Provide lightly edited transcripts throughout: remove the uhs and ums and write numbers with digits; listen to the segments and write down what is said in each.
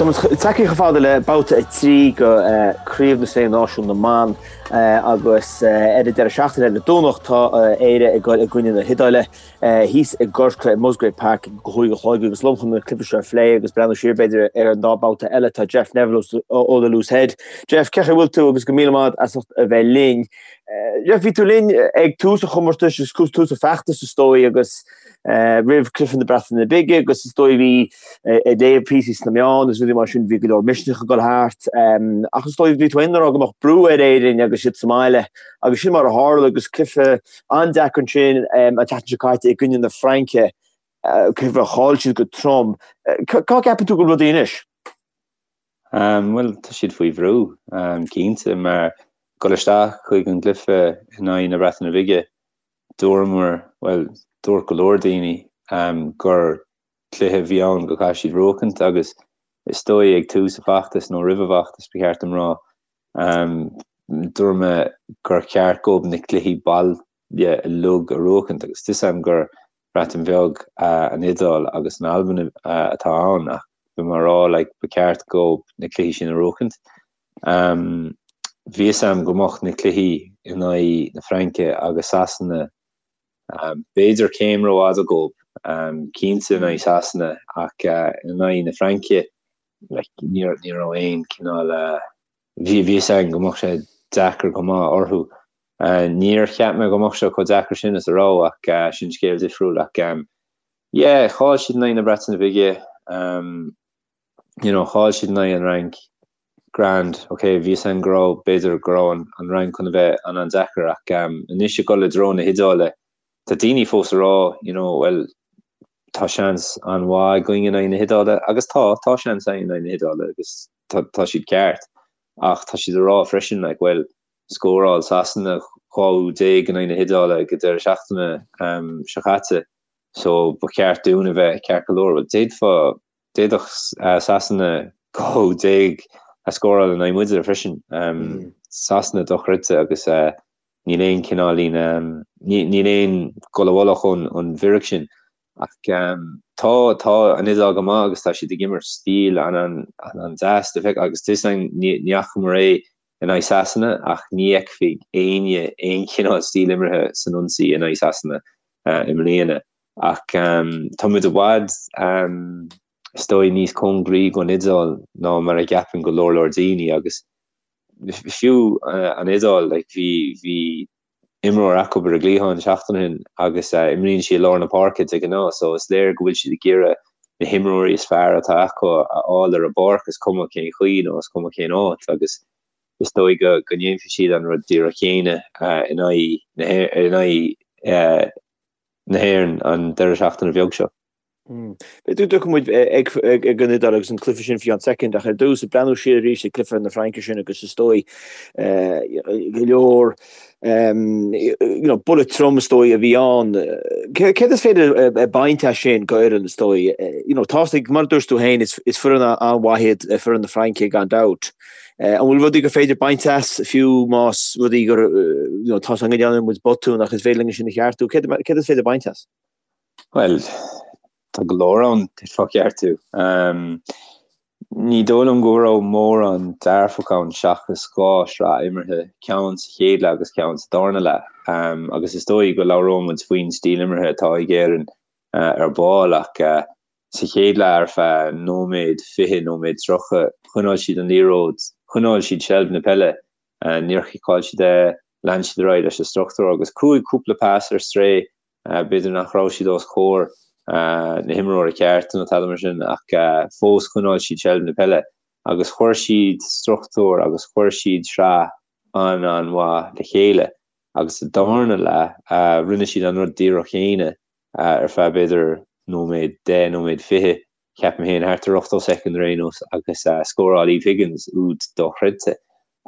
Tá muid tagtha chomh fada le babhta 3 de Chraobh na Sé Náisiún na mBan agus ar an deireadh seachtaine ar an Domhnach tá Éire ag dul i gcoinne na hIodáile thíos i gCorcaigh i Musgrave Park ag a 5 a chlog agus liom chun an cluiche seo a phlé agus breathnú siar b'fhéidir ar an dá babhta eile tá Jeff Neville ó The Loose Head. Jeff, cén chaoi a bhfuil tú agus go míle maith as ucht a bheith linn. Jeff, bhí tú linn ag tús an chomórtais agus tús an fheachtais is dóigh agus roimh cluiche na Breataine Bige agus is dóigh bhí ag léamh píosaí sna meáin agus rudaí mar sin bhí go leor misneach ag dul thart ach is dóigh bhí tú féin ag rá go mbeadh brú ar Éirinn agus iad sa mbaile agus sin mar a tharla agus cluiche an-deacair ansin an tseachtain seo caite i gcoinne na Fraince cluiche a chaill siad go trom. Cá gceapann tú go bhfuil rudaí anois? Bhuel, tá siad faoi bhrú, cinnte, mar dul isteach chuig an gcluiche in aghaidh na Breataine Bige, dúramar, bhuel, dúirt go leor daoine gur cluiche a bhí ann go gcaithfidh siad buachaint agus is dóigh ag tús an fheachtais nó roimh an bhfeachtas ba cheart dom rá, dúirt mé gur cheart dóibh na cluichí baile uilig a bhuachaint agus tá 'fhios a'm gur Breatain Bheag, an Iodáil agus an Albain atá ann ach bhí mé ag rá like ba cheart dóibh na cluichí sin a bhuachaint. Bhí 'fhios a'm go mbeadh na cluichí in aghaidh na Fraince agus Sasana b'fhéidir céim rófhada dhóibh, cinnte in aghaidh Sasana ach in aghaidh na Fraince like ní ní raibh aon cineál bhí bhí 'fhios a'm go mbeadh sé deacair go maith orthu. Níor cheap mé go mbeadh sé chomh deacair sin is a raibh ach sin scéal difriúil ach yeah chaill siad in aghaidh na Breataine Bige you know chaill siad in aghaidh an Fhrainc Grand, ok, bhí 'fhios a'm go raibh, b'fhéidir go raibh an an Fhrainc chun a bheith an-an-deacair ach anois ag dul i dtreo na hIodáile, tá daoine fós ag rá, you know, well, tá seans an-mhaith againn in aghaidh na hIodáile agus tá, tá seans againn in aghaidh na hIodáile agus tá, tá siad ceart ach tá siad ag rá freisin, like, well, scóráil Sasana 12 úd in aghaidh na hIodáile ag an deireadh seachtaine seo caite so ba cheart dúinn a bheith ceart go leor. Well, d'fhéadfá D'fhéadfadh Sasana 12 úd a scóráil in aghaidh muide freisin. Sasana dochreidte agus níl aon cineáilín, níl aon dul i bhfolach ón bhfíric sin. Ach tá, tá an Iodáil go maith agus tá siad ag imirt stíl an-an-deas le feiceáil agus tá 'fhios a'm ní fhacamar é in aghaidh Sasana ach ní fheicfidh éinne aon chineál stíl imeartha san ionsaí in aghaidh Sasana i mbliana. Ach tá muid i bhfad, is dóigh, níos cóngaraí don Iodáil ná mar a gceapann go leor leor daoine agus fiú an Iodáil, like, bhí, bhí imreoir acu ar an gcliathán seachtain ó shin agus imríonn sí i lár na páirce de ghnáth so is léir go bhfuil siad ag iarraidh na himreoirí is fearr atá acu a fháil ar an bpáirc, is cuma cén chaoi nó is cuma cén áit agus is dóigh go go ndéanfaidh siad an rud díreach céanna in aghaidh na in aghaidh na hÉireann an deireadh seachtaine bheag seo. B'fhéidir go dtiocfaidh muid ag an Iodáil agus an cluiche sin faoi cheann soicind ach ar dtús, ag breathnú siar arís ag cluiche na Fraince sin agus is dóigh go leor buille trom is dóigh a bhí ann. Céard is féidir a baint as sin go Éirinn is dóigh? Tá mar a dúirt tú féin is foireann an-mhaith iad foireann na Fraince gan dabht. An bhfuil rudaí gur féidir baint as fiú más rudaí gur tá sé go ndearna muid botún ach is féidir linn sin a cheartú? Céard is féidir baint as? Bhuel, tá go leor ann d'fhéadfá a cheartú. Ní dóigh liom go raibh mórán dearfach ann seachas dhá shraith imeartha, ceann sa chéad leath agus ceann sa darna leath. Agus is dóigh go labhróidh muid faoin stíl imeartha atá ag Éirinn ar ball ach sa chéad leath ar feadh nóiméad 20, nóiméad 30, choinneáil siad an liathróid, choinneáil siad seilbh na peile, níor chiceáil siad é, lean siad ar aghaidh leis an struchtúr agus chuaigh cúpla pas ar strae, b'fhéidir nach raibh siad os comhair na himreora ceart nó tada mar sin ach fós choinneáil siad seilbh na peile agus chuir siad struchtúr agus chuir siad sraith an-an-mhaith le chéile agus sa darna leath rinne siad an rud díreach chéanna ar feadh b'fhéidir nóiméad, 10 nóiméad 20, ceapaim féin, thart ar 80 soicind ar aon nós agus scóráil Eve Higgins úd dochreidte.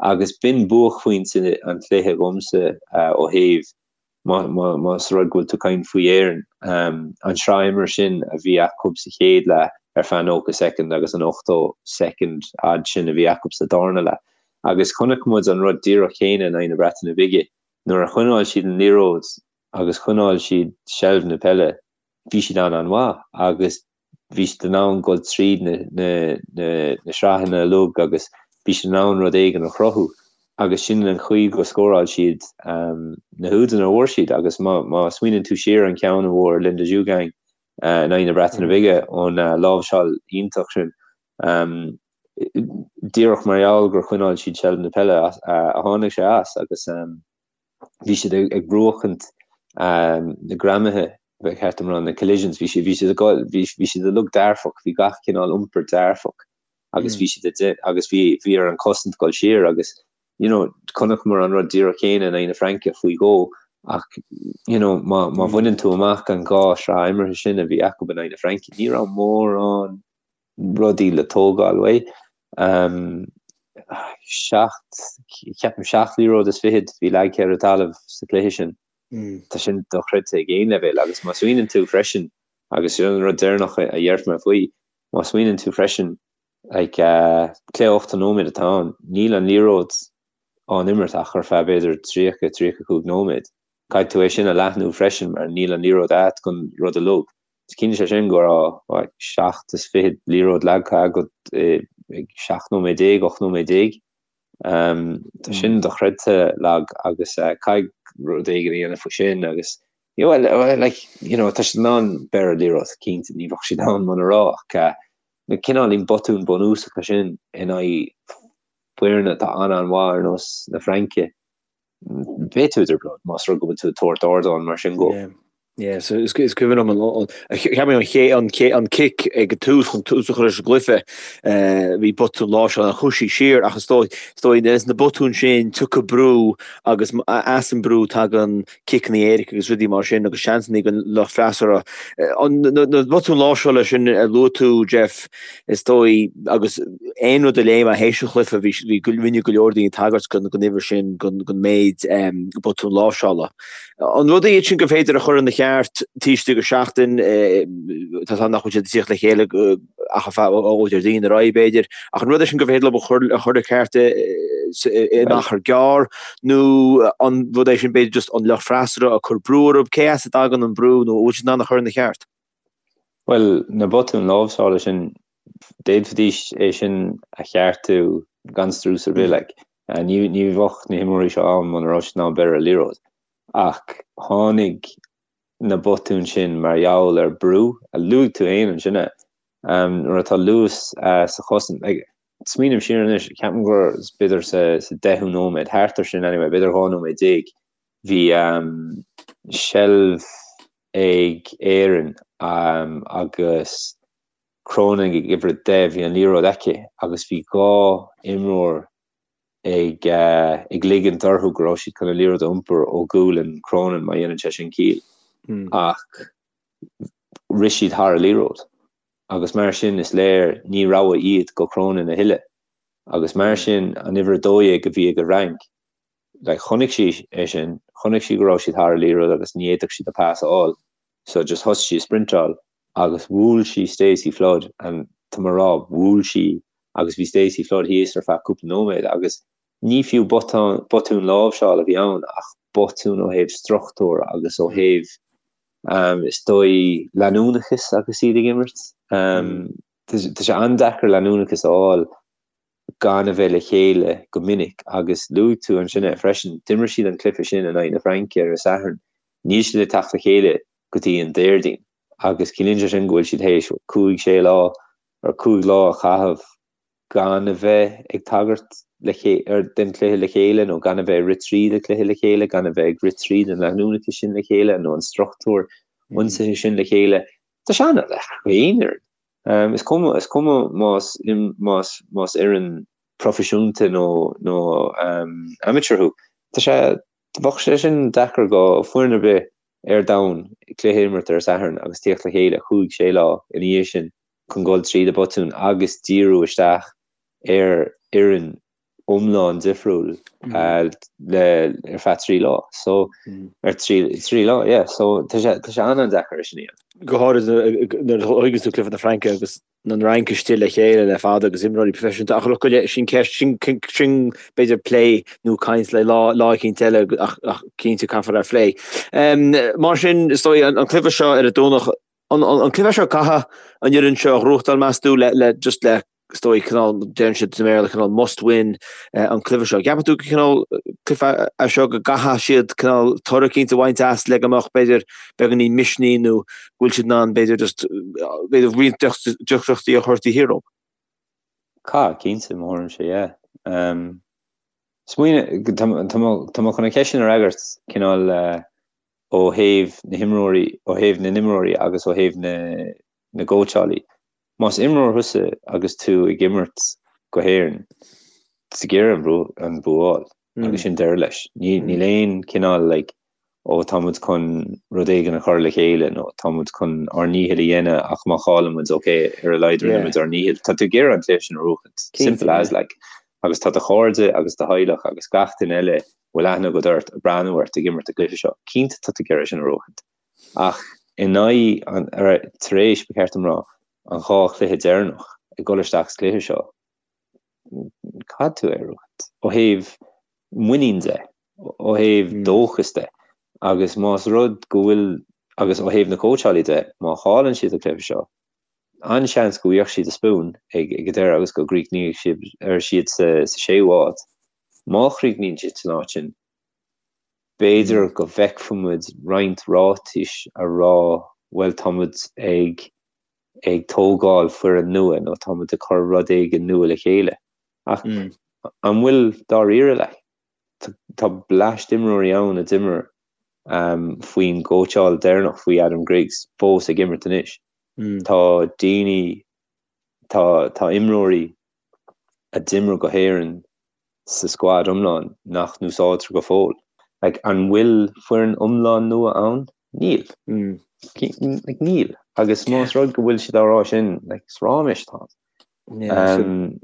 Agus b'in buaicphointe an chluiche dhomsa ó thaobh, más rud go bhfuil tú ag caint faoi Éirinn, an sraith imeartha sin a bhí acu sa chéad leath ar feadh 90 soicind agus an 80 soicind fhad sin a bhí acu sa darna leath. Agus chonaic muid an rud díreach céanna in aghaidh na Breataine Bige. Nuair a choinneáil siad an liathróid agus choinneáil siad seilbh na peile, bhí siad an-an-mhaith agus Bhí siad in ann dul tríd na na sraitheanna uilig agus bhí siad in ann rud éigin a chruthú agus sin an chaoi go scóráil siad na húdanna a bhfuair siad agus má má smaoineann tú siar an ceann a bhfuair Linda Djougang in aghaidh na Breataine Bige ón láimhseáil iontach sin díreach mar gheall gur choinneáil siad seilbh na peile a tháinig sé as agus bhí siad ag buachaint na greamaithe, ba cheart dom rá, na collisions, bhí siad, bhí siad ag, bhí, bhí siad uilig dearfach, bhí gach cineál iompar dearfach agus bhí siad ag, agus bhí, bhí ar an cosaint dul siar agus, you know, chonaiceamar an rud díreach céanna in aghaidh na Fraince faoi dhó ach, you know, má, má bhaineann tú amach an dhá shraith imeartha sin a bhí acu in aghaidh na Fraince, ní raibh mórán rudaí le tógáil uaidh. 7, ceapaim 7 liathróid is fichead bhí leagtha ar an talamh sa chluiche sin. Tá sin dochreidte ag aon leibhéal agus má smaoineann tú freisin, agus sin an rud deireanach a dhéarfaidh mé faoi, má smaoineann tú freisin, like, cluiche 80 nóiméad atá ann, níl an liathróid á n-imirt ach ar feadh b'fhéidir 30, 35 nóiméad. Caithfidh tú é sin a leathnú freisin mar níl an liathróid agat don rud uilig. Ciallaíonn sé sin go raibh 27 liathróid leagtha agat ag 17 nóiméad, 18 nóiméad. Tá sin dochreidte lag agus caithfidh rud éigin a dhéanamh faoi sin agus you know, well, like, you know, tá siad in ann breith ar an liathróid, cinnte, ní bheadh siad ann muna raibh ach na cineáilín botúin bunúsacha sin in aghaidh foirne atá an-an-mhaith ar nós na Fraince. Beidh tú i dtrioblóid más rud go bhfuil tú ag tabhairt ardán mar sin dhó. Yeah, so is cuimhin liom an cheap mé an ché an ché an cic ag an tús chun tús a chur leis an gcluiche bhí botún láimhseála an chuaigh sí siar ach is dóigh is dóigh na botúin sin tiocfaidh brú agus as an brú tagann ciceanna éirice agus rudaí mar sin agus seansanna don lucht freasúra. Na botúin láimhseála sin a luaigh tú Jeff is dóigh agus aon rud a léigh mé théis an chluiche bhí bhí rinne go leor daoine tagairt don don uimhir sin don don méid botún láimhseála. An rud iad sin gur féidir a chur ina cheart taobh istigh de sheachtain, tá a fhios agam nach bhfuil siad ag tíocht le chéile ach ar feadh ó Déardaoin ar aghaidh b'fhéidir, ach an rud é sin gur féidir leo a chur a chur ina cheart in achar gearr nó an rud é sin b'fhéidir just an lucht freasúra ag cur brú orthu, cé as a dtagann an brú nó an bhfuil siad in ann a chur ina cheart? Bhuel, na botúin láimhseála sin, d'fhéadfaidís é sin a cheartú gan strus ar bith, like. Ní bheadh na himreoirí seo ann muna raibh siad in ann breith ar an liathróid. Ach tháinig na botúin sin mar gheall ar brú, a luaigh tú féin ansin é, nuair atá luas sa chosaint. Like, smaoiním siar anois, ceapaim gur b'fhéidir sa deichiú nóiméad, thart ar sin anyway, b'fhéidir 12 nóiméad, bhí seilbh ag Éirinn agus Cronin ag uimhir 10, bhí an liathróid aici agus bhí dhá imreoir ag ag ligint orthu go raibh siad chun an liathróid a iompar ó ghualainn Cronin má dhéanann sé sin ciall. Ach rith siad thar an liathróid agus mar sin is léir ní rogha iad go Cronin a thuilleadh agus mar sin an uimhir 12 a bhí ag an Fhrainc like chonaic sí é sin, chonaic sí go raibh siad thar an liathróid agus ní fhéadfadh siad a pas a fháil so just thosaigh sí ag sprintáil agus bhuail sí Stacey Flood and tá mé ag rá bhuail sí agus bhí Stacey Flood thíos ar feadh cúpla nóiméad agus ní fiú botún, botún láimhseála a bhí ann ach botún ó thaobh struchtúr agus ó thaobh um, is dóigh leanúnachas agus iad ag imirt. Um, tá sé an-deacair leanúnachas a fháil gan a bheith le chéile go minic agus luaigh tú ansin é freisin, d'imir siad an cluiche sin in aghaidh na Fraince ar an Satharn, níl siad ag teacht le chéile go dtí an Déardaoin agus ciallaíonn sé sin go bhfuil siad théis cúig, sé lá or cúig lá a chaitheamh gan a bheith ag tagairt le ar den chluiche le chéile nó gan a bheith ag rith tríd an chluiche le chéile, gan a bheith ag rith tríd an leanúnachas sin le chéile nó an struchtúr ionsaithe sin le chéile. Tá sé an-deacair aon fhoireann. Is cuma, is cuma más, más, más fhoireann proifisiúnta nó, nó amateur thú. Tá sé, bheadh sé sin deacair go foireann ar bith ar domhan cluiche a imirt ar Satharn agus tíocht le chéile chúig, sé lá ina dhiaidh sin chun dul tríd an botún agus díriú isteach ar fhoireann iomlán difriúil le ar feadh 3 lá. So ar 3 lá, yeah. So tá sé tá sé an-an-deacair é sin a dhéanamh. Go háirid nuair a thuigeann tú cluiche na Fraince agus an Fhrainc istigh le chéile le fada agus imreoirí proifisiúnta ach look sin ceist sin sin b'fhéidir plé nó caint le lá lá eicínt eile ach ach cinnte caithfear é a phlé. Mar sin is dóigh an cluiche seo ar an Domhnach. An cluiche seo caithfidh an fhoireann seo a ghnóthachtáil meas tú le le just le is dóigh cineál deireann siad sa mBéarla cineál must win an cluiche seo. Ceapann tú go cineál cluiche é seo go gcaithfidh siad cineál toradh eicínt a bhaint as le go mbeadh b'fhéidir beagáinín misnigh nó go bhfuil siad in ann b'fhéidir just b'fhéidir roinnt deacrachtaí a chur taobh thiar dóibh? Caithfidh, cinnte, mo thuairimse, yeah. Smaoineamh, tá mé chun an cheist sin a fhreagairt cineál ó thaobh na himreoirí, ó thaobh na n-imreoirí agus ó thaobh na na gcóitseálaí. Más imreoir thusa agus tú ag imirt go hÉirinn, tá tú ag iarraidh an bua a fháil agus sin deireadh leis. Níl aon cineál like ó tá muid chun rud éigin a chur le chéile nó tá muid chun ár ndícheall a dhéanamh ach má chailleann muid ok ar a laghad rinne muid ár ndícheall. Tá tú ag iarraidh an cluiche sin a bhuachaint. Simple as like. Agus tá do chairde agus do theaghlach agus gach duine eile a bhfuil aithne agat ort ag breathnú ort ag imirt an cluiche seo. Cinnte tá tú ag iarraidh sin a bhuachaint. Ach in aghaidh an, tar éis, ba cheart dom rá, an dhá chluiche deireanach ag dul isteach sa chluiche seo, caithfidh tú é a bhuachaint. Ó thaobh muinín de, ó thaobh dóchas de, agus más rud go bhfuil, agus ó thaobh na cóitseálaí de, má chailleann siad an cluiche seo, an-seans go bhfaighidh siad a spún ag an deireadh agus go gcríochnóidh siad sa séú háit. Má chríochnaíonn siad san áit sin, B'fhéidir go bhfeicfidh muid roinnt ráitis a rá bhuel tá muid ag ag tógáil foireann nua nó tá muid ag cur rud éigin nua le chéile. Ach an bhfuil dáiríre like? Tá bleaist imreoirí ann a d'imir faoin gcóitseáil deireanach faoi Adam Griggs fós ag imirt anois. Tá daoine, tá tá imreoirí a d'imir go hÉirinn sa scuad iomlán nach n-úsáidtear go fóill. Like, an bhfuil foireann iomlán nua ann? Níl. Like, níl. Agus más rud go bhfuil siad á rá sin, like, is ráiméis atá ann. Um,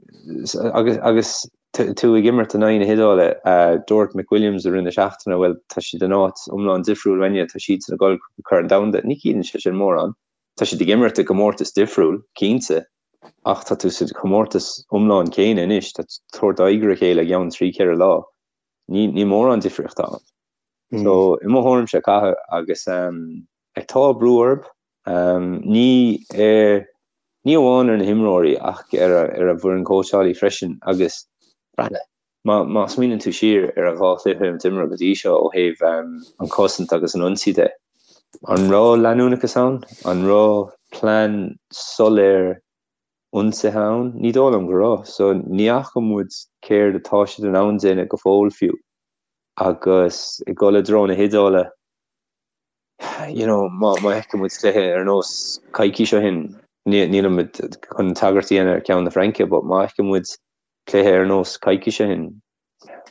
agus, agus tú ag imirt in aghaidh na hIodáile, uh, dúirt McWilliams i rith na seachtaine, bhuel, tá siad in áit iomlán difriúil uainne, tá siadsan ag dul Corn Domhanda. Ní chiallaíonn sé sin mórán. Tá siad ag imirt i gcomórtas difriúil, cinnte, Ach tá tú sa chomórtas iomlán céanna anois, tá tú ag tabhairt aghaidh ar a chéile i gceann trí, ceithre lá. Ní, níl mórán difríochta ann. So, i mo thuairimse, caithfidh agus like, tá brú orthu, ní ar, ní amháin ar na himreoirí ach ar a, ar an bhfoireann cóitseálaí freisin agus breathnaigh, má, má smaoineann tú siar ar an dhá chluiche a d'imir go dtí seo ó thaobh an chosaint agus an ionsaí de, an raibh leanúnachas ann? An raibh plean soiléir ionsaithe ann? Ní dóigh liom go raibh. So ní fhaca muid céard atá siad in ann déanamh go fóill fiú. Agus ag dul i dtreo na hIodáile, you know, má fheiceann muid cluiche ar nós coicís ó shin, nílimid chun tagairt a dhéanamh ar ceann na Fraince, but má fheiceann muid cluiche ar nós coicís ó shin,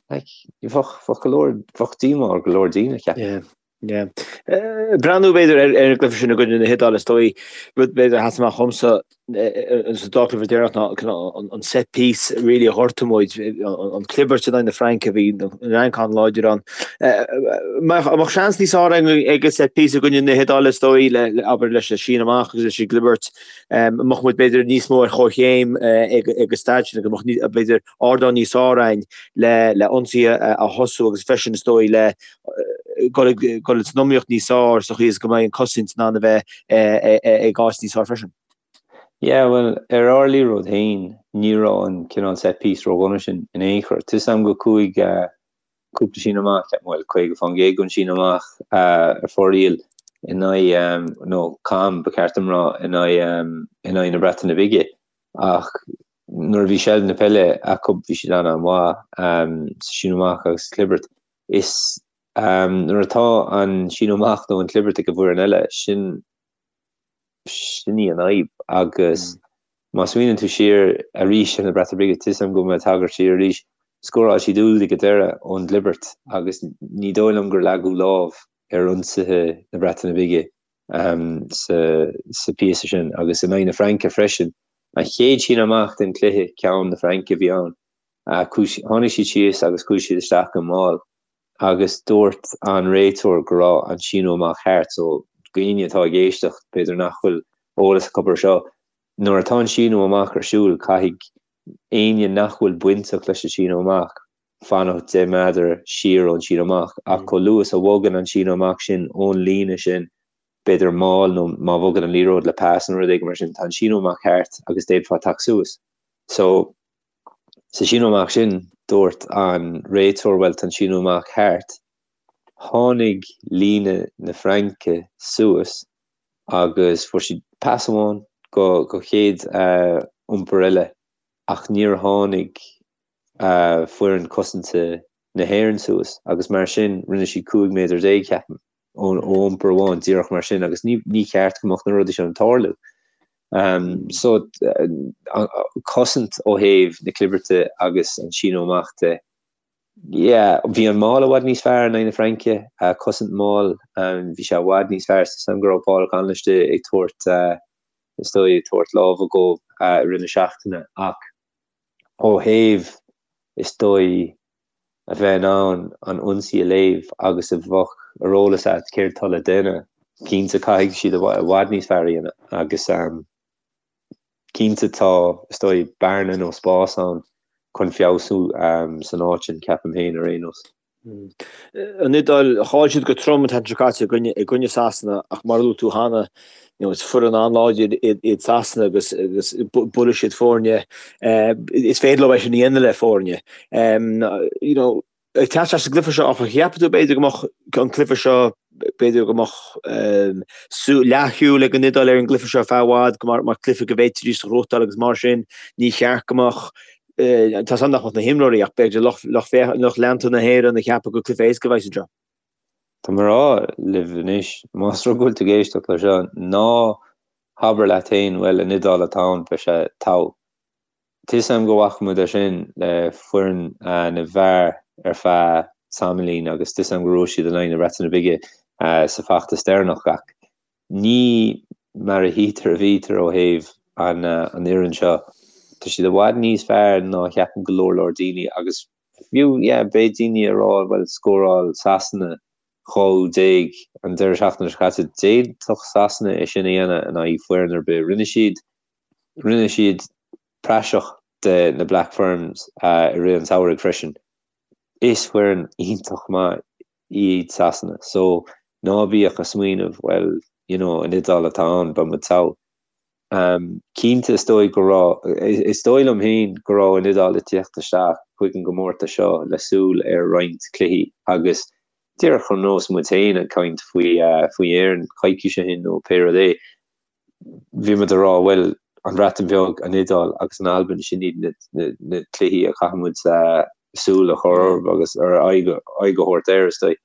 like, bheadh, bheadh go leor, bheadh díomá ar go leor daoine, ceapaim. Yeah, yeah. Breathnú b'fhéidir ar ar an gcluiche sin i gcoinne na hIodáile is dóigh, rud b'fhéidir a sheas amach dhomsa sa dá chluiche deireanach ná cineál an set piece really a ghortaigh muid, an clibirt in aghaidh na Fraince, bhí an Fhrainc an-láidir ann. An mbeadh seans níos fearr ag an set piece i gcoinne na hIodáile is dóigh, le, abair leis an síneadh amach agus leis an gclibirt, mbeadh muid b'fhéidir níos mó ar chomhchéim ag an staid sin, go mbeadh b'fhéidir ardán níos fearr againn le le ionsaithe a thosú agus freisin is dóigh le dul dul san iomaíocht níos fearr sa chaoi is go mbeidh an cosaint in ann a bheith ag áit níos fearr freisin. Yeah, bhuel, ar ár liathróid féin, ní raibh an cineál set piece ródhona sin in aon chor. Tá 'fhios a'm go chuaigh cúpla síneadh amach, ceapaim, bhuel, 50% den síneadh amach ar fóraoil in aghaidh, nó cam, ba cheart dom rá, in aghaidh, in aghaidh na Breataine Bige. Ach nuair a bhí seilbh na peile acu bhí siad an-an-mhaith sa síneadh amach agus sa chlibirt. Is nuair atá an síneadh amach nó an chlibirt ag an bhfoireann eile, sin, Sin í an fhadhb agus má smaoineann tú siar arís ar na Breataine Bige, tá 'fhios a'm go mbeidh tagairt siar arís, scóráil siad úd ag an deireadh ón gclibirt agus ní dóigh liom gur leagadh lámh ar ionsaithe na Breataine Bige sa phíosa sin agus in aghaidh na Fraince freisin. An chéad síneadh amach den chluiche, ceann na Fraince a bhí ann. Tháinig siad síos agus chuaigh siad isteach go mall. agus dúirt an réiteoir go raibh an síneadh amach thart, so dhaoine atá ag éisteacht, b'fhéidir nach bhfuil eolas acu ar seo, nuair atá an síneadh amach ar siúl, caithfidh éinne nach bhfuil bainteach leis an síneadh amach fanacht 10 méadar siar ón síneadh amach, ach chomh luath is a bhogann an síneadh amach sin ón líne sin. b'fhéidir mall nó má bhogann an liathróid le pas nó rud éigin mar sin, tá an síneadh amach thart agus d'fhéadfá teacht suas. So, sa síneadh amach sin, dúirt an réiteoir bhuel tá an síneadh amach thart. Tháinig líne na Fraince suas agus fuair siad pas amháin go go chéad iompar eile ach níor tháinig foireann cosanta na hÉireann suas agus mar sin rinne siad 15 méadar, ceapaim, ó iompar amháin díreach mar sin agus ní cheart go mbeadh na rudaí sin ag tarlú. So cosaint ó thaobh na clibirte agus an síneadh amach de. Yeah, bhí an maul i bhfad níos fearr in aghaidh na Fraince, cosaint maul, bhí sé i bhfad níos fearr is dóigh go raibh Paul O'Connell istigh ag tabhairt, is dóigh, ag tabhairt lámha dhó i rith na seachtaine ach ó thaobh, is dóigh, a bheith in ann an ionsaí a léamh agus a bheadh ar eolas agat céard atá le déanamh, cinnte caithfidh siad i bhfad níos fearr a dhéanamh agus cinnte tá, is dóigh, bearna nó spás ann chun feabhsú san áit sin, ceapaim féin ar aon nós. An Iodáil, chaill siad go trom an tseachtain seo caite i gcoinne Sasana ach mar a luaigh tú cheana, you know, is foireann an-láidir iad Sasana agus agus buailfidh siad foirne, is féidir leo é sin a dhéanamh le foirne. You know, ag teacht isteach sa gcluiche seo, áfach, cheapfá tú b'fhéidir go mbeadh an cluiche seo, b'fhéidir go mbeadh leathshúil ag an Iodáil ar an gcluiche seo ar feadh i bhfad, go mar mar cluiche go bhféadfaidís a ghnóthachtáil agus mar sin ní cheart go mbeadh tá a fhios agam nach mbeadh na himreoirí ach b'fhéidir lucht lucht lucht leanta na hÉireann ag ceapadh gur cluiche éasca a bheas anseo. Tá mé ag rá libh anois, más rud go bhfuil tú ag éisteacht le seo, ná habair leat féin, bhuel, an Iodáil atá ann, beidh sé togha. Tá 'fhios a'm go bhfaca muid é sin le foireann na bhfear ar feadh tamaillín agus tá 'fhios a'm go raibh siad in aghaidh na Breataine Bige sa bhfeachtas deireanach ach ní mar a tchítear a bhítear ó thaobh an fhoireann seo. Tá siad i bhfad níos fearr ná a cheapann go leor leor daoine agus Fiú, yeah, beidh daoine ag rá, bhuel, scóráil Sasana 12 an deireadh seachtaine seo caite, d'fhéadfadh Sasana é sin a dhéanamh in aghaidh foireann ar bith. Rinne siad, rinne siad praiseach de na Black Ferns i rith an tsamhraidh freisin. Is foireann iontach maith iad Sasana, so ná bíodh ag smaoineamh, bhuel, you know, an Iodáil atá ann, beidh muid togha. Cinnte, is dóigh go raibh, is dóigh liom féin go raibh an Iodáil ag tíocht isteach chuig an gcomórtas seo le súil ar roinnt cluichí agus díreach ar nós muid féin ag caint faoi faoi Éirinn coicís ó shin nó pé rud é, bhí muid ag rá bhuel, an Bhreatain Bheag, an Iodáil agus an Albain, sin iad na na cluichí a chaithfidh muid súil a chur orthu agus ar aghaidh a thabhairt air, is dóigh.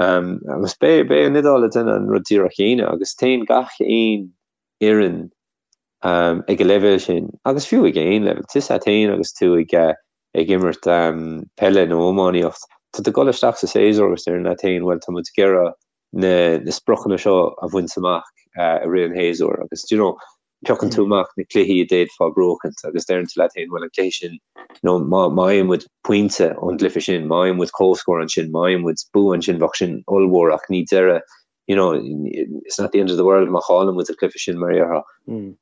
Agus beidh beidh an Iodáil ag déanamh an rud díreach chéanna agus téann gach aon fhoireann ag an leibhéal sin, agus fiú ag aon leibhéal, tá 'fhios a't fhéin agus tú ag ag imirt peile nó iománaíocht, tá tú ag dul isteach sa séasúr agus deireann leat fhéin, bhuel tá muid ag iarraidh na na spriocanna seo a bhaint amach i rith an shéasúir agus do you know piocann tú amach na cluichí a d'fhéadfá buachaint agus deireann tú leat fhéin, bhuel an cluiche sin nó má má fhaigheann muid pointe ón gcluiche sin, má fhaigheann muid comhscór ansin, má fhaigheann muid bua ansin bheadh sin ollmhór ach ní deireadh you know, it's not the end of the world má chailleann muid an cluiche sin mar a déarfá.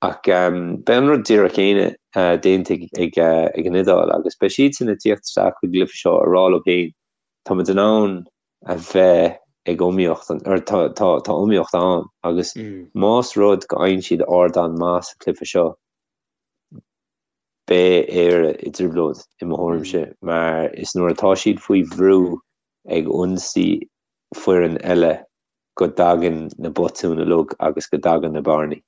Ach beidh an rud díreach céanna déanta ag ag an Iodáil agus beidh siadsan ag tíocht isteach chuig an gcluiche seo ag rá leo féin, tá muid in ann a bheith ag iomaíocht, or tá tá tá iomaíocht ann agus más rud go fhaigheann siad ardán maith sa chluiche seo, beidh Éire i dtrioblóid i mo thuairimse mar is nuair atá siad faoi bhrú ag ionsaí foireann eile go dtagann na botúin uilig agus go dtagann na bearnaí.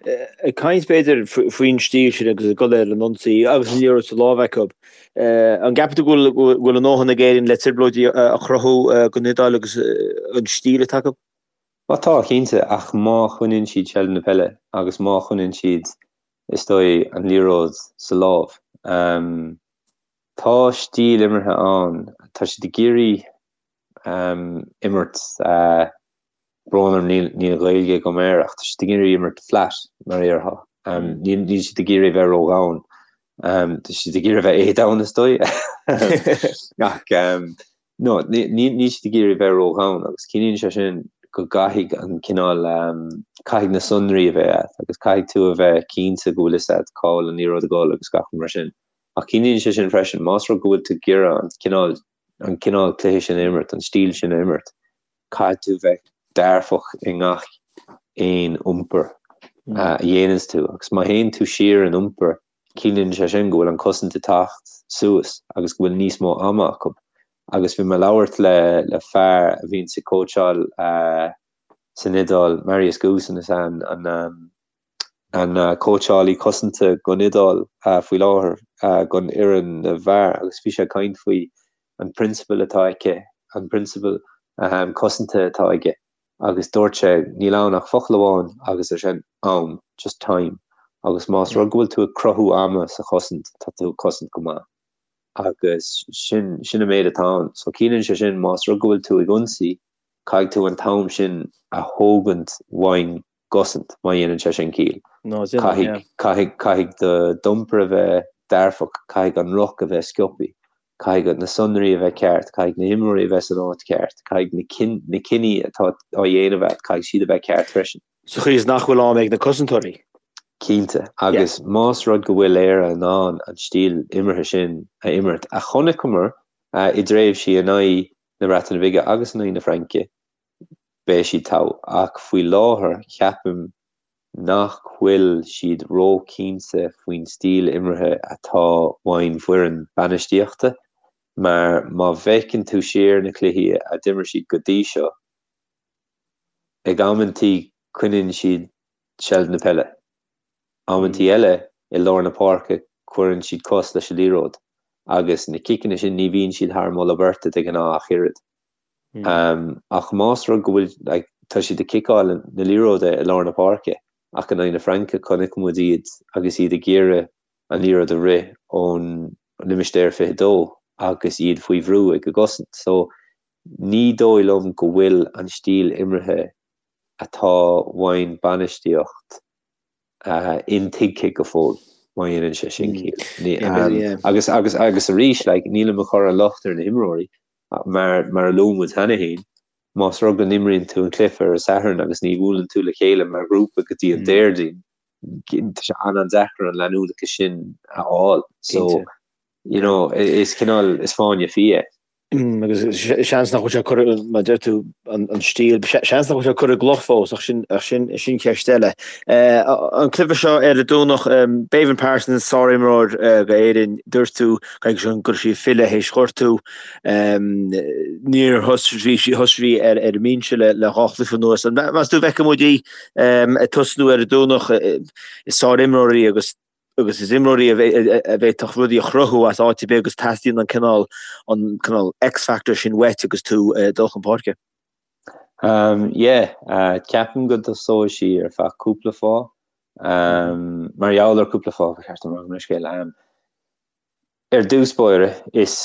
Ag caint b'fhéidir faoin stíl sin agus ag dul ar an ionsaí agus an liathróid sa lámh acu, an gceapann tú go bhfuil a ndóthain ag Éirinn le trioblóidí a chruthú don Iodáil agus an stíl atá acu? Á tá, cinnte, ach má choinníonn siad seilbh na peile agus má choinníonn siad, is dóigh, an liathróid sa lámh. Tá stíl imeartha ann, tá siad ag iarraidh imirt, brón orm níl níl Gaeilge agam air ach tá siad ag iarraidh imirt flat mar a déarfá. Níl níl siad ag iarraidh bheith ródhomhain. Tá siad ag iarraidh bheith éadomhain is dóigh. Ach no níl níl siad ag iarraidh bheith ródhomhain agus ciallaíonn sé sin go gcaithfidh an cineál caithfidh na sonraí a bheith agat agus caithfidh tú a bheith cinnte go bhfuil fhios agat cá bhfuil an liathróid ag dul agus gach rud mar sin. Ach ciallaíonn sé sin freisin más rud go bhfuil tú ag iarraidh an cineál an cineál cluiche sin a imirt, an stíl sin a imirt, caithfidh tú bheith dearfach i ngach. aon iompar a dhéananns tú agus má théann tú siar in iompar ciallaíonn sé sin go bhfuil an cosaint ag teacht suas agus go bhfuil níos mó ama acu. Agus bhí mé ag labhairt le le fear a bhíonns ag cóitseáil san Iodáil, Marius Goosen is ea an an an cóitseálaí cosanta don Iodáil faoi láthair don fhoireann na bhfear agus bhí sé ag caint faoi an prionsabal atá aici, an prionsabal cosanta atá aige. agus dúirt sé, níl ann ach focal amháin agus é sin am, just time, agus más rud go bhfuil tú ag cruthú ama sa chosaint, tá tú ag cosaint go maith. Agus sin, sin an méid atá ann. So ciallaíonn sé sin más rud go bhfuil tú ag ionsaí, caithfidh tú an t-am sin a thógaint ón gcosaint, má dhéanann sé sin ciall. No, déanann, yeah. Caithfidh, caithfidh, caithfidh d'iompar a bheith dearfach, caithfidh an ruc a bheith sciobtha. Caithfidh na sonraí a bheith ceart, caithfidh na himreoirí a bheith san áit cheart, caithfidh na cinní atá á dhéanamh agat, caithfidh siad a bheith ceart freisin. Sa chaoi is nach bhfuil am ag na cosantóirí. Cinnte, agus más rud go bhfuil Éire in ann an stíl imeartha sin a imirt, a chonaiceamar i dtréimhsí in aghaidh na Breataine Bige agus in aghaidh na Fraince, beidh siad togha. Ach faoi láthair, ceapaim nach bhfuil siad ró-chinnte faoin stíl imeartha atá ón bhfoireann bainistíochta mar má bhfeiceann tú siar na cluichí a d'imir siad go dtí seo, ag amantaí coinníonn siad seilbh na peile, amantaí eile i lár na páirce cuireann siad cos leis an liathróid agus na ciceanna sin ní bhíonn siad thar moladh beirte de ghnáth ach oiread. Ach más rud go bhfuil, like, tá siad ag ciceáil na liathróide i lár na páirce ach in aghaidh na Fraince chonaic muid iad agus iad ag iarraidh an liathróid a rith ón limistéar 22 agus iad faoi bhrú ag an gcosaint. So ní dóigh liom go bhfuil an stíl imeartha atá ón bainistíocht intuigthe go fóill, má dhéanann sé sin ciall. Agus, agus, agus arís, like, nílim ag cur an locht ar na himreoirí, mar, mar a luaigh muid cheana féin, más rud go n-imríonn tú an cluiche ar an Satharn agus ní bhuaileann tú le chéile mar ghrúpa go dtí an Déardaoin, tá sé an-an-deacair an leanúnachas sin a fháil. So, you know, is cineál, is fáinne fí é. Agus seans nach bhfuil sé curtha, mar a deir tú, an stíl, seans nach bhfuil sé curtha i gcloch fós, ach sin, ach sin, sin ceist eile. An cluiche seo ar an Domhnach, Béibhinn Parsons, sárimreoir d'Éirinn, dúirt tú go raibh sí ag filleadh théis gortú. Níor thosaigh sí, thosaigh sí ar ar an mbinse le le dhá chluiche anuas. Meas tú an bhfeicfidh muid í ag tosnú ar an Domhnach? Is sárimreoir í agus agus is imreoir í a bhféadfadh rudaí a chruthú as áit ar bith agus teastaíonn an cineál an cineál X-factor sin uait agus tú ag dul chun páirce. Um, yeah, uh, ceapaim go dtosóidh sí ar feadh cúpla fáth. Um, mar gheall ar cúpla fáth ba cheart dom a rá gabh mo leithscéal. Um, ar dtús báire is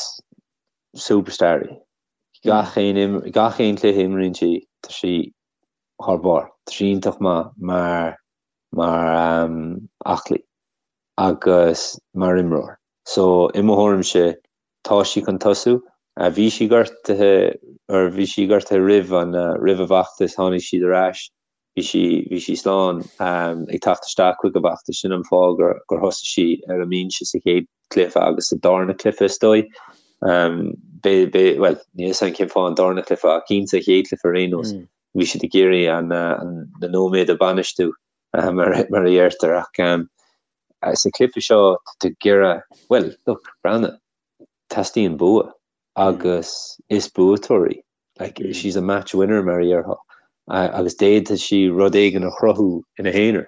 superstar í. Gach aon gach aon cluiche a imríonn sí, tá sí thar barr. Tá sí iontach maith mar mar aclaí agus mar imreoir. So, i mo thuairimse, tá sí chun tosú. Bhí sí gortaithe, or bhí sí gortaithe roimh an, roimh an bhfeachtas, tháinig siad ar ais, bhí sí, bhí sí slán ag teacht isteach chuig an bhfeachtas, sin an fáth gur, gur thosaigh sí ar an mbinse sa chéad chluiche agus sa darna cluiche is dóigh. Bé, bé, bhuel, níl a fhios agam cén fáth an darna cluiche ach cinnte an chéad chluiche ar aon nós. Bhí siad ag iarraidh an na nóiméid a bhainistiú mar a dheirtear ach sa chluiche seo tá tú ag iarraidh, bhuel, look, breathnaigh, teastaíonn bua agus is buaiteoir í. Like, she's a match winner mar a déarfá agus d'fhéadfadh sí rud éigin a chruthú ina haonar.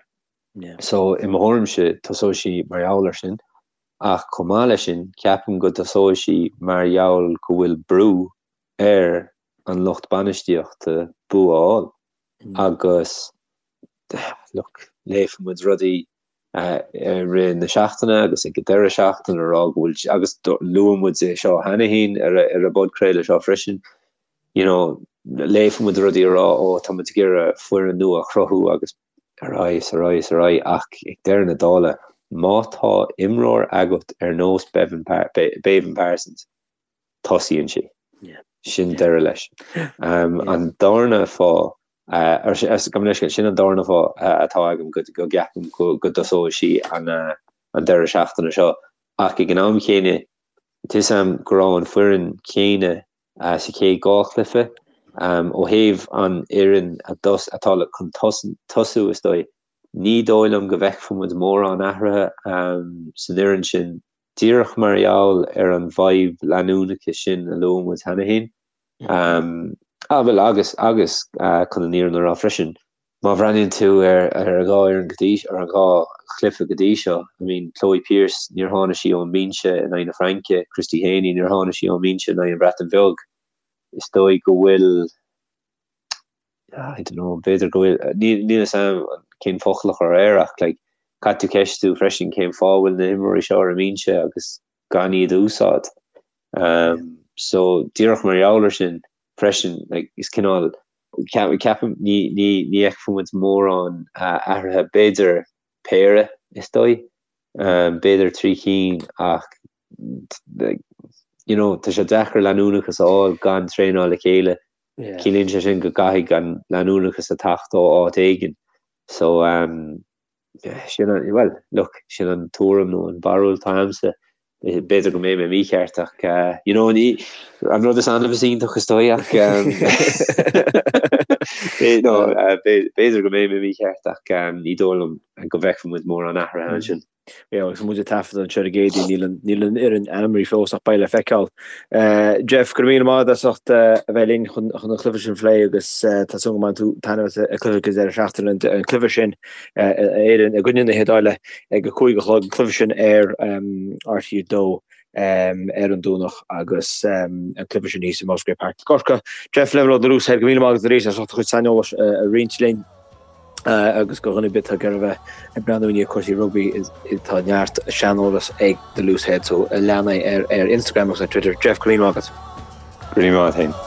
So i mo thuairimse tosóidh sí mar gheall air sin ach chomh maith leis sin ceapaim go dtosóidh sí mar gheall go bhfuil brú ar an lucht bainistíochta bua a fháil agus look, léifidh muid rudaí i rith na seachtaine agus ag an deireadh seachtaine a rá go bhfuil, agus luaigh muid é seo cheana féin ar an bpodchraoladh seo freisin, you know, léifidh muid rudaí a rá ó tá muid ag iarraidh foireann nua a chruthú agus ar aghaidh is ar aghaidh is ar aghaidh ach ag deireadh na dála má tá imreoir agat ar nós Béibhinn Parsons, tosaíonn sí. Sin deireadh leis. An darna fáth, gabh mo leithscéal, sin an darna fáth atá agam go gceapaim go dtosóidh sí an deireadh seachtaine seo. Ach ag an am chéanna, tá a fhios agam go raibh an foireann chéanna sa chéad dhá chluiche. Ó thaobh an fhoireann atá chun tosú is dóigh, ní dóigh liom go bhfeicfidh muid mórán athruithe san fhoireann sin, díreach mar gheall ar an bhfadhb leanúnachais sin a luaigh muid cheana féin. Ah, bhuel, agus, agus chun an fhírinne a rá freisin, má bhreathnaíonn tú ar ar an dhá fhoireann go dtí, ar an dhá chluiche go dtí seo, I mean, Chloe Pearse, níor tháinig sí ón mbinse in aghaidh na Fraince, Christy Haney, níor tháinig sí ón mbinse in aghaidh an Bhreatain Bheag. Is dóigh go bhfuil, I don't know, b'fhéidir go bhfuil, níl níl a fhios agam cén focal a chur air ach like, caithfidh tú ceistiú freisin cén fáth a bhfuil na himreoirí seo ar an mbinse agus gan iad a úsáid. So díreach mar gheall ar sin freisin, like, is cineál, ceapaim, ní ní ní fheicfidh muid mórán athruithe, b'fhéidir péire is dóigh, b'fhéidir 3 cinn ach like, you know, tá sé deacair leanúnachas a fháil gan traenáil le chéile. Ciallaíonn sé sin go gcaithfidh an leanúnachas a theacht ó áit éigin. So, um, sin an, well, look, sin an tuairim nó an bharúil atá agamsa. B'fhéidir go mbeidh mé mícheart ach, uh, you know, ní, an rud is annamh is iontach is dóigh ach, um, no, uh, b'fhéidir go mbeidh mé mícheart ach um, ní dóigh liom go bhfeicfidh muid mórán athruithe ansin. Yeah, agus muid ag taifeadadh anseo ar an gCéadaoin, níl an, níl an fhoireann ainmnithe fós ach beidh le feiceáil. Jeff, go raibh míle maith agat as ucht a bheith linn chun, chun an chluiche sin a phlé agus tá súil go mbainfidh tú taitneamh as an cluiche ag an deireadh seachtaine, an, an cluiche sin Éirinn i gcoinne na hIodáile ag a 5 a chlog, an cluiche sin ar RTÉ 2 ar an Domhnach agus an cluiche sin thíos i Musgrave Park i gCorcaigh. Jeff Flavell ó The Loose Head, go raibh míle maith agat arís as ucht do chuid saineolais a roinnt linn. agus do dhuine ar bith atá ag iarraidh a bheith ag breathnú i ndiaidh cúrsaí rugbaí tá neart saineolas ag The Loose Head so lean é ar Instagram agus ar Twitter. Jeff, go raibh míle maith agat. Go raibh míle maith agat féin.